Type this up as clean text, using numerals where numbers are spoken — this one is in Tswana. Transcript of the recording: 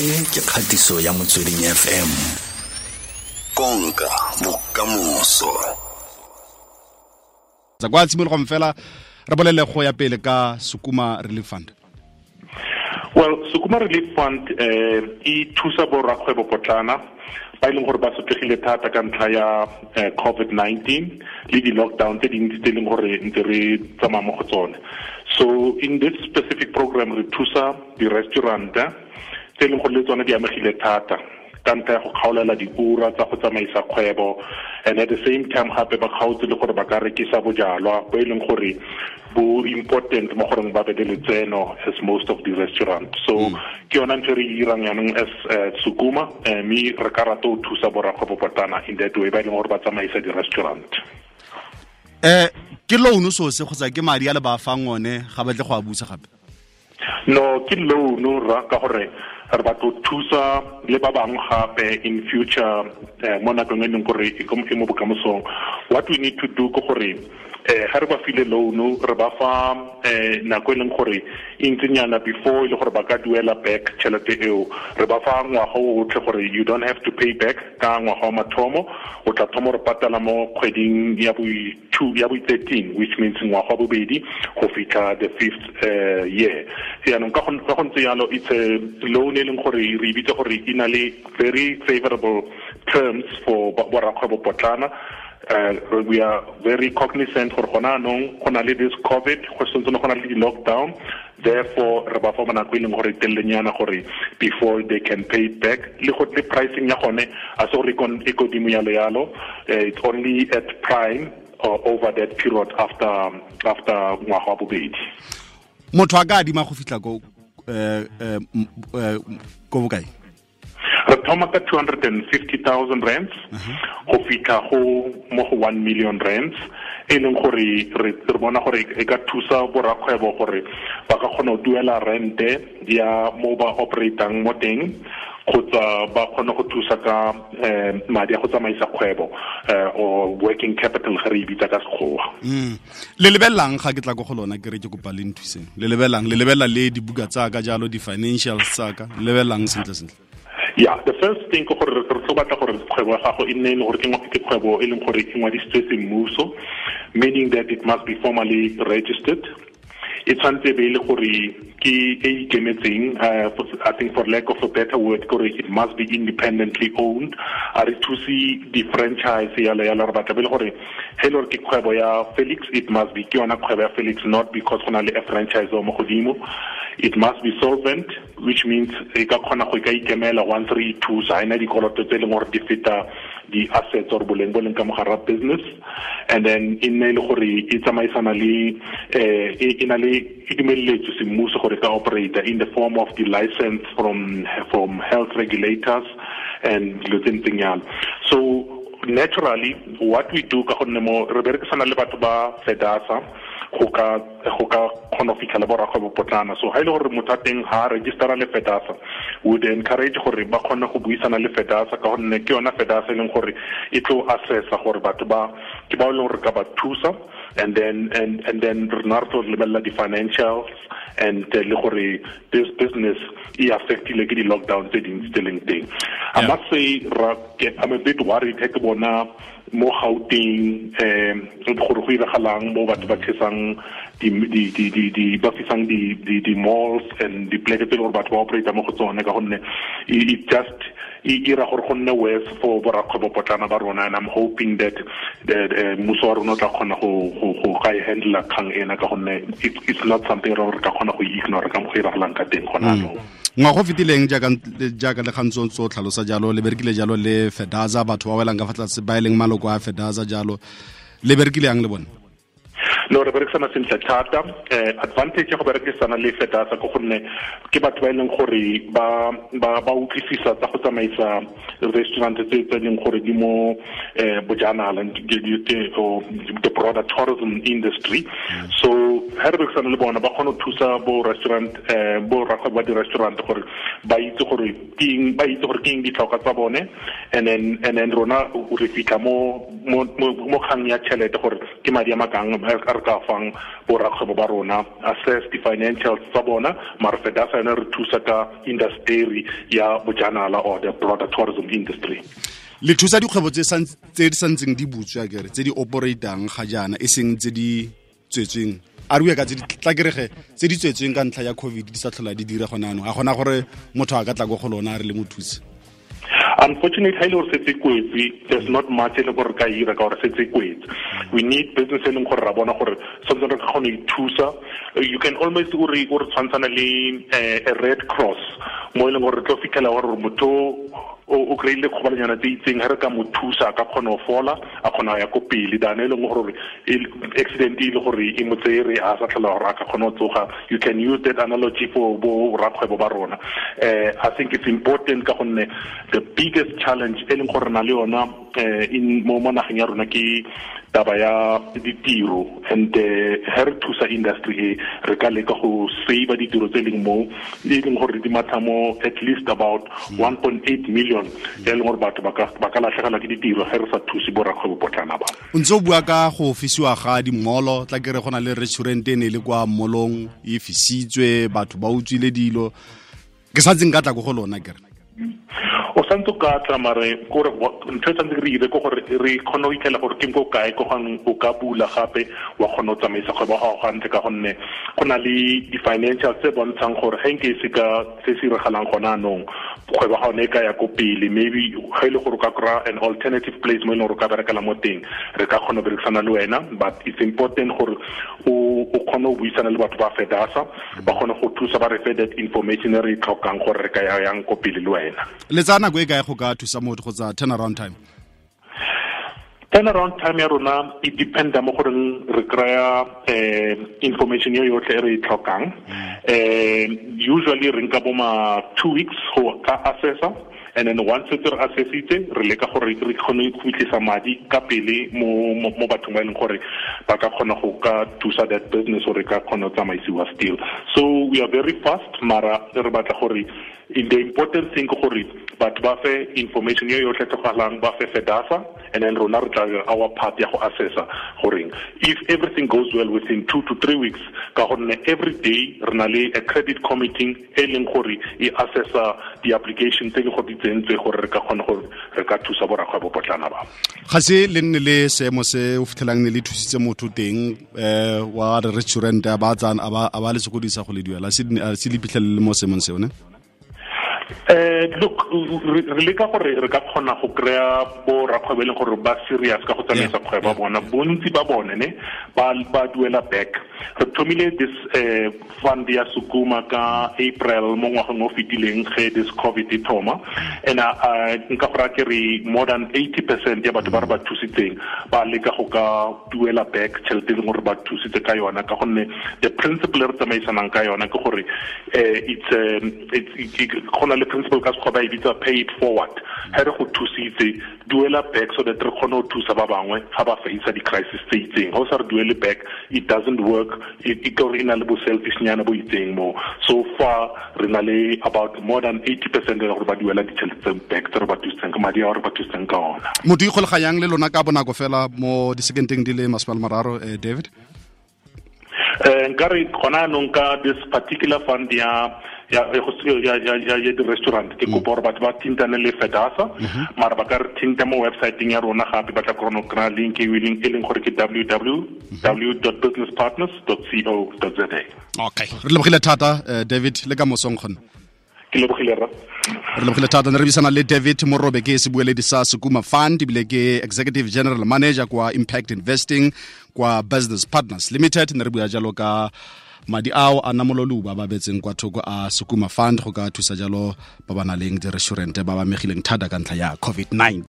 E ke kgatiso ya Motsweding FM. Konka bokamoso. Tsa kwa tshimologong fela re bolele go ya pele ka Sukuma Relief Fund. Well, Sukuma Relief Fund e thusa borrakgwebo potlana ba e leng gore ba sotlegile thata ka ntlha ya COVID-19 le di-lockdown tse dintsi tse e leng gore ntse re tsamaya mo go tsone. So in this specific program re thusa di-restaurant tse e leng gore le tsone di amegile thata ka ntlha ya go kgaolela diura tsa go tsamaisa kgwebo, and at the same time gape ba kgaotse le gore ba ka rekisa bojalwa bo e leng gore bo important mo goreng ba be le letseno as most of the restaurant. So ke yona ntho e re e dirang jaanong as Sukuma, mme re ka rata go thusa borrakgwebo potlana in that way ba e leng gore ba tsamaisa di-restaurant. Ke loan so se kgotsa ke madi a le ba fang one ga batle go a busa gape? No, ke loan ra ka gore re batla go thusa le ba bangwe gape in future, mo nakong e leng gore e mo bokamosong. What we need to do ke gore ga re ba file loan, re ba fa nako e leng gore e ntsinyana before e le gore ba ka duela back tšhelete eo. Re ba fa ngwaga o otlhe gore you don't have to pay back ka ngwaga wa mathomo, o tla thoma re patala mo kgweding ya bo 2 ya bo 13, which means ngwaga wa bobedi go fitlha the fifth year. Jaanong ka go ntse yalo, it's a loan e leng gore re e bitsa gore e na le very favorable terms for borrakgwebo potlana. We are very cognizant gore gona anong go na le this COVID, go santse go na le di-lockdown, therefore re ba fa nako e leng gore telelenyana gore before they can pay it back. Le go le pricing ya gone a se gore e kodimo yalo yalo, it's only at prime over that period after ngwaga wa bobedi. Motho a ka adima go fitlha ko ko bokae? Re thoma ka 250,000 rands go fitlha go mo go 1 million rands, e leng gore re bona gore e ka thusa borrakgwebo gore ba ka kgona go duela rente ya mo ba operatang mo teng, kgotsa ba kgone go thusa ka madi a go tsamaisa kgwebo, or working capital ga re e bitsa ka Sekgowa. Le lebelelang ga ke tla ko go lona ke re ke kopa le nthuseng, le lebelelang, le lebelela le dibuka tsa ka jalo, di-financials tsa ka, le lebelelang sentle sentle? Yeah, the first thing ke gore re tlo batla gore kgwebo ya gago e nne e le gore ke kgwebo e leng gore e ngwadisitswe semmuso, meaning that it must be formally registered. E tshwanetse be e le gore ke e ikemetseng, I think for lack of a better word, gore it must be independently owned. A re thuse di-franchise yalo yalo, re batla be le gore he le gore ke kgwebo ya Felix, it must be ke yona kgwebo ya Felix, not because go na le a franchise mo godimo. It must be solvent, which means e ka kgona go ka ikemela once re e thusa, ha ena dikoloto tse e leng gore di feta di-assets or boleng bo leng ka mogare wa business. And then e nne e le gore e tsamaisana le e na le e dumeletswe semmuso gore ka operate in the form of the license from health regulators and dilo tse ntseng yalo. So naturally what we do ka gonne mo re berekisana le batho ba FEDASA go ka kgona go fitlhela borrakgwebo potlana. So ha e le gore motho a teng ha registera le FEDASA, we would encourage gore ba kgone go buisana le FEDASA, ka gonne ke yona FEDASA e leng gore e tlo assessa gore batho ba ke ba e leng gore ka ba thusa, and then and then re na re tlo lebelela di-financials and le gore this business e affectile ke di-lockdown tse dintsi tse leng teng. I must say I'm a bit worried he ke bona mo Gauteng gore go iragalang mo batho ba chesang di ba fisang di malls and di pleke tse gore batho ba operate mo go tsone, ka gonne it just e ira gore go nne worse for borrakgwebo potlana ba rona. And I'm hoping that mmuso wa rona o tla kgona go ka e handle kgang ena, ka gonne it's not something re ka kgona go ignore ka mo go iragalang ka teng gona anong. Ngwaga o fetileng jaaka le gantsi o tlhalosa jalo, le berekile jalo le FEDASA, batho ba welang ka fa tlase ba e leng maloko a FEDASA jalo, le berekile yang le bone? No, re berekisana sentle thata. Advantage ya go berekisana le FEDASA ke gonne ke batho ba e leng gore ba utlwisisa tsa go tsamaisa restaurant tse leng gore di mo bojanala, the broader tourism industry. So ha re berekisana le bona ba kgone go thusa bo restaurant bo rakgwebo ba di-restaurant gore ba itse gore ke eng ditlhokwa tsa bone, and then rona re fitlha mo kgang ya tšhelete gore ke madi a makang a re ka fang bo rakgwebo ba rona, assess di-financials tsa bona. Mara FEDASA yone re thusa ka industry ya bojanala or the broader tourism industry. Le thusa dikgwebo tse di santseng di butswe akere, tse di operatang ga jaana, e seng tse di tswetsweng. A re bue ka tse di tla kerege tse di tswetsweng ka ntlha ya COVID di sa tlhola di dira gone anong. A gona gore motho a ka tla go go lona a re le mo thuse? Unfortunately, ha ile gore setse kwetse, there's not much e leng gore ka ira ka gore setse kwetse. We need business e leng gore ra bona gore something re ka kgona go ithusa. You can almost o re tshwantshana le a Red Cross mo e leng gore re tlo fitlhela gore motho o kry-ile kgobalanyana tse itseng, ha re ka mo thusa a ka kgona go fola, a kgona go ya ko pele. Than e leng gore accident e le gore e mo tsere a sa tlhola gore a ka kgona go tsoga. You can use that analogy for bo rakgwebo ba rona. I think it's important ka gonne the biggest challenge e leng gore na le yona in mo nageng ya rona ke taba ya ditiro, and ha re thusa industry e re ka leka go save ditiro tse leng mo e leng gore di matha mo at least about 1.8 million e leng gore batho ba ka latlhegelwa ke ditiro ge re sa thuse bo rakgwebo potlana ba. O ntse o bua ka go fisiwa ga dimolo, tla kere go na le restaurant e ne le kwa molong e fisitswe, batho ba utswile dilo. Ke sa ntseng ka tla ko go lona kere. O santse ka tla mare gore ntho e tshwanetse re ire ke gore re kgone go itlhela gore ke ko kae ko gang o ka bula gape wa kgona go tsamaisa kgwebo ya gago gantle, ka gonne go na le di-financial tse bontshang gore ge nke se ka se se iragalang gona anong kgwebo ya gago ne e ka ya ko pele. Maybe ge e le gore o ka kry-a an alternative place mo e leng gore o ka berekela mo teng, re ka kgona go berekisana le wena. But it's important gore o kgone go buisana le batho ba FEDASA, ba kgone go thusa, ba re fe that information e re e tlhokang gore re ka ya yang ko pele le wena. Le tsaya nako e kae go ka thusa motho kgotsa turnaround time? Turnaround time ya rona e dependa mo goreng re kry-a information yo yotlhe e re e tlhokang. Usually re nka bo ma 2 weeks go ka assessa, and then once re assessitse re leka gore re kgone go fitlhisa madi ka pele mo bathong ba e leng gore ba ka kgona go ka thusa that business gore ka kgona go tsamaisiwa still. So we are very fast, mara re batla gore the important thing ke gore batho ba fe information yo yotlhe tlhokagalang, ba fe FEDASA, and then rona re tla our part ya go assessa goreng if everything goes well within 2 to 3 weeks, ka gonne every day re na le a credit committee e leng gore e assessa di-application tse le gore di tsentswe gore re ka kgona gore re ka thusa borakgwebo potlana ba. Ga se le nne le seemo se o fitlhelang ne le thusitse motho teng wa re restaurant a ba tsana a ba le sokodisa go le duela, se le phitlhelele mo seemong seo ne? Look, re leka gore re ka kgona go kry-a bo rakgwebo e leng gore ba serious ka go tsamaisa kgwebo ya bona. Bontsi ba bone ne ba duela back. Re thomile this fund ya Sukuma ka April mo ngwageng o fetileng ge this COVID e thoma, and nka go raya ke re more than 80% ya batho ba re ba thusitseng ba leka go ka duela back tšhelete e leng gore ba thusitse ka yona, ka gonne the principle e re tsamaisanang ka yona ke gore go na le principle ka sekgwa ba e bitsa pay it forward. Ha re go thusitse, duela back so that re kgone go thusa ba bangwe ga ba face di-crisis tse itseng. Ga o sa re duele back, it doesn't work. E ka gore e na le bo selfishnyana bo itseng mo. So far re na le about more than 80% ya gore ba duela ditšhelete tse back tse re ba thusitseng ka madi a re ba thusitseng ka ona. Motho ikgolaganyang le lona ka bonako fela mo disekenteng di le 30, David? Nka re gona anong ka this particular fund ya di-restaurant ke kopa gore batho ba thintane le FEDASA, mara ba ka re thinta mo websiteng ya rona gape ba tla kgona go kry-a link e leng gore ke www.businesspartners.co.za. Okay, re lebogile thata David, le ka mosong kgone. Ke lebogile rra. Re lebogile thata. Ne re buisana le David Morobe, ke sebueledi sa Sukuma Fund, ebile ke Executive General Manager kwa Impact Investing kwa Business Partners Limited. Ne re bua jalo ka madi ao a namololuba ba betseng kwa thoko a Sukuma Fund go ka thusa jalo ba ba nang le di-restaurant ba ba amegileng thata ka ntlha ya COVID-19.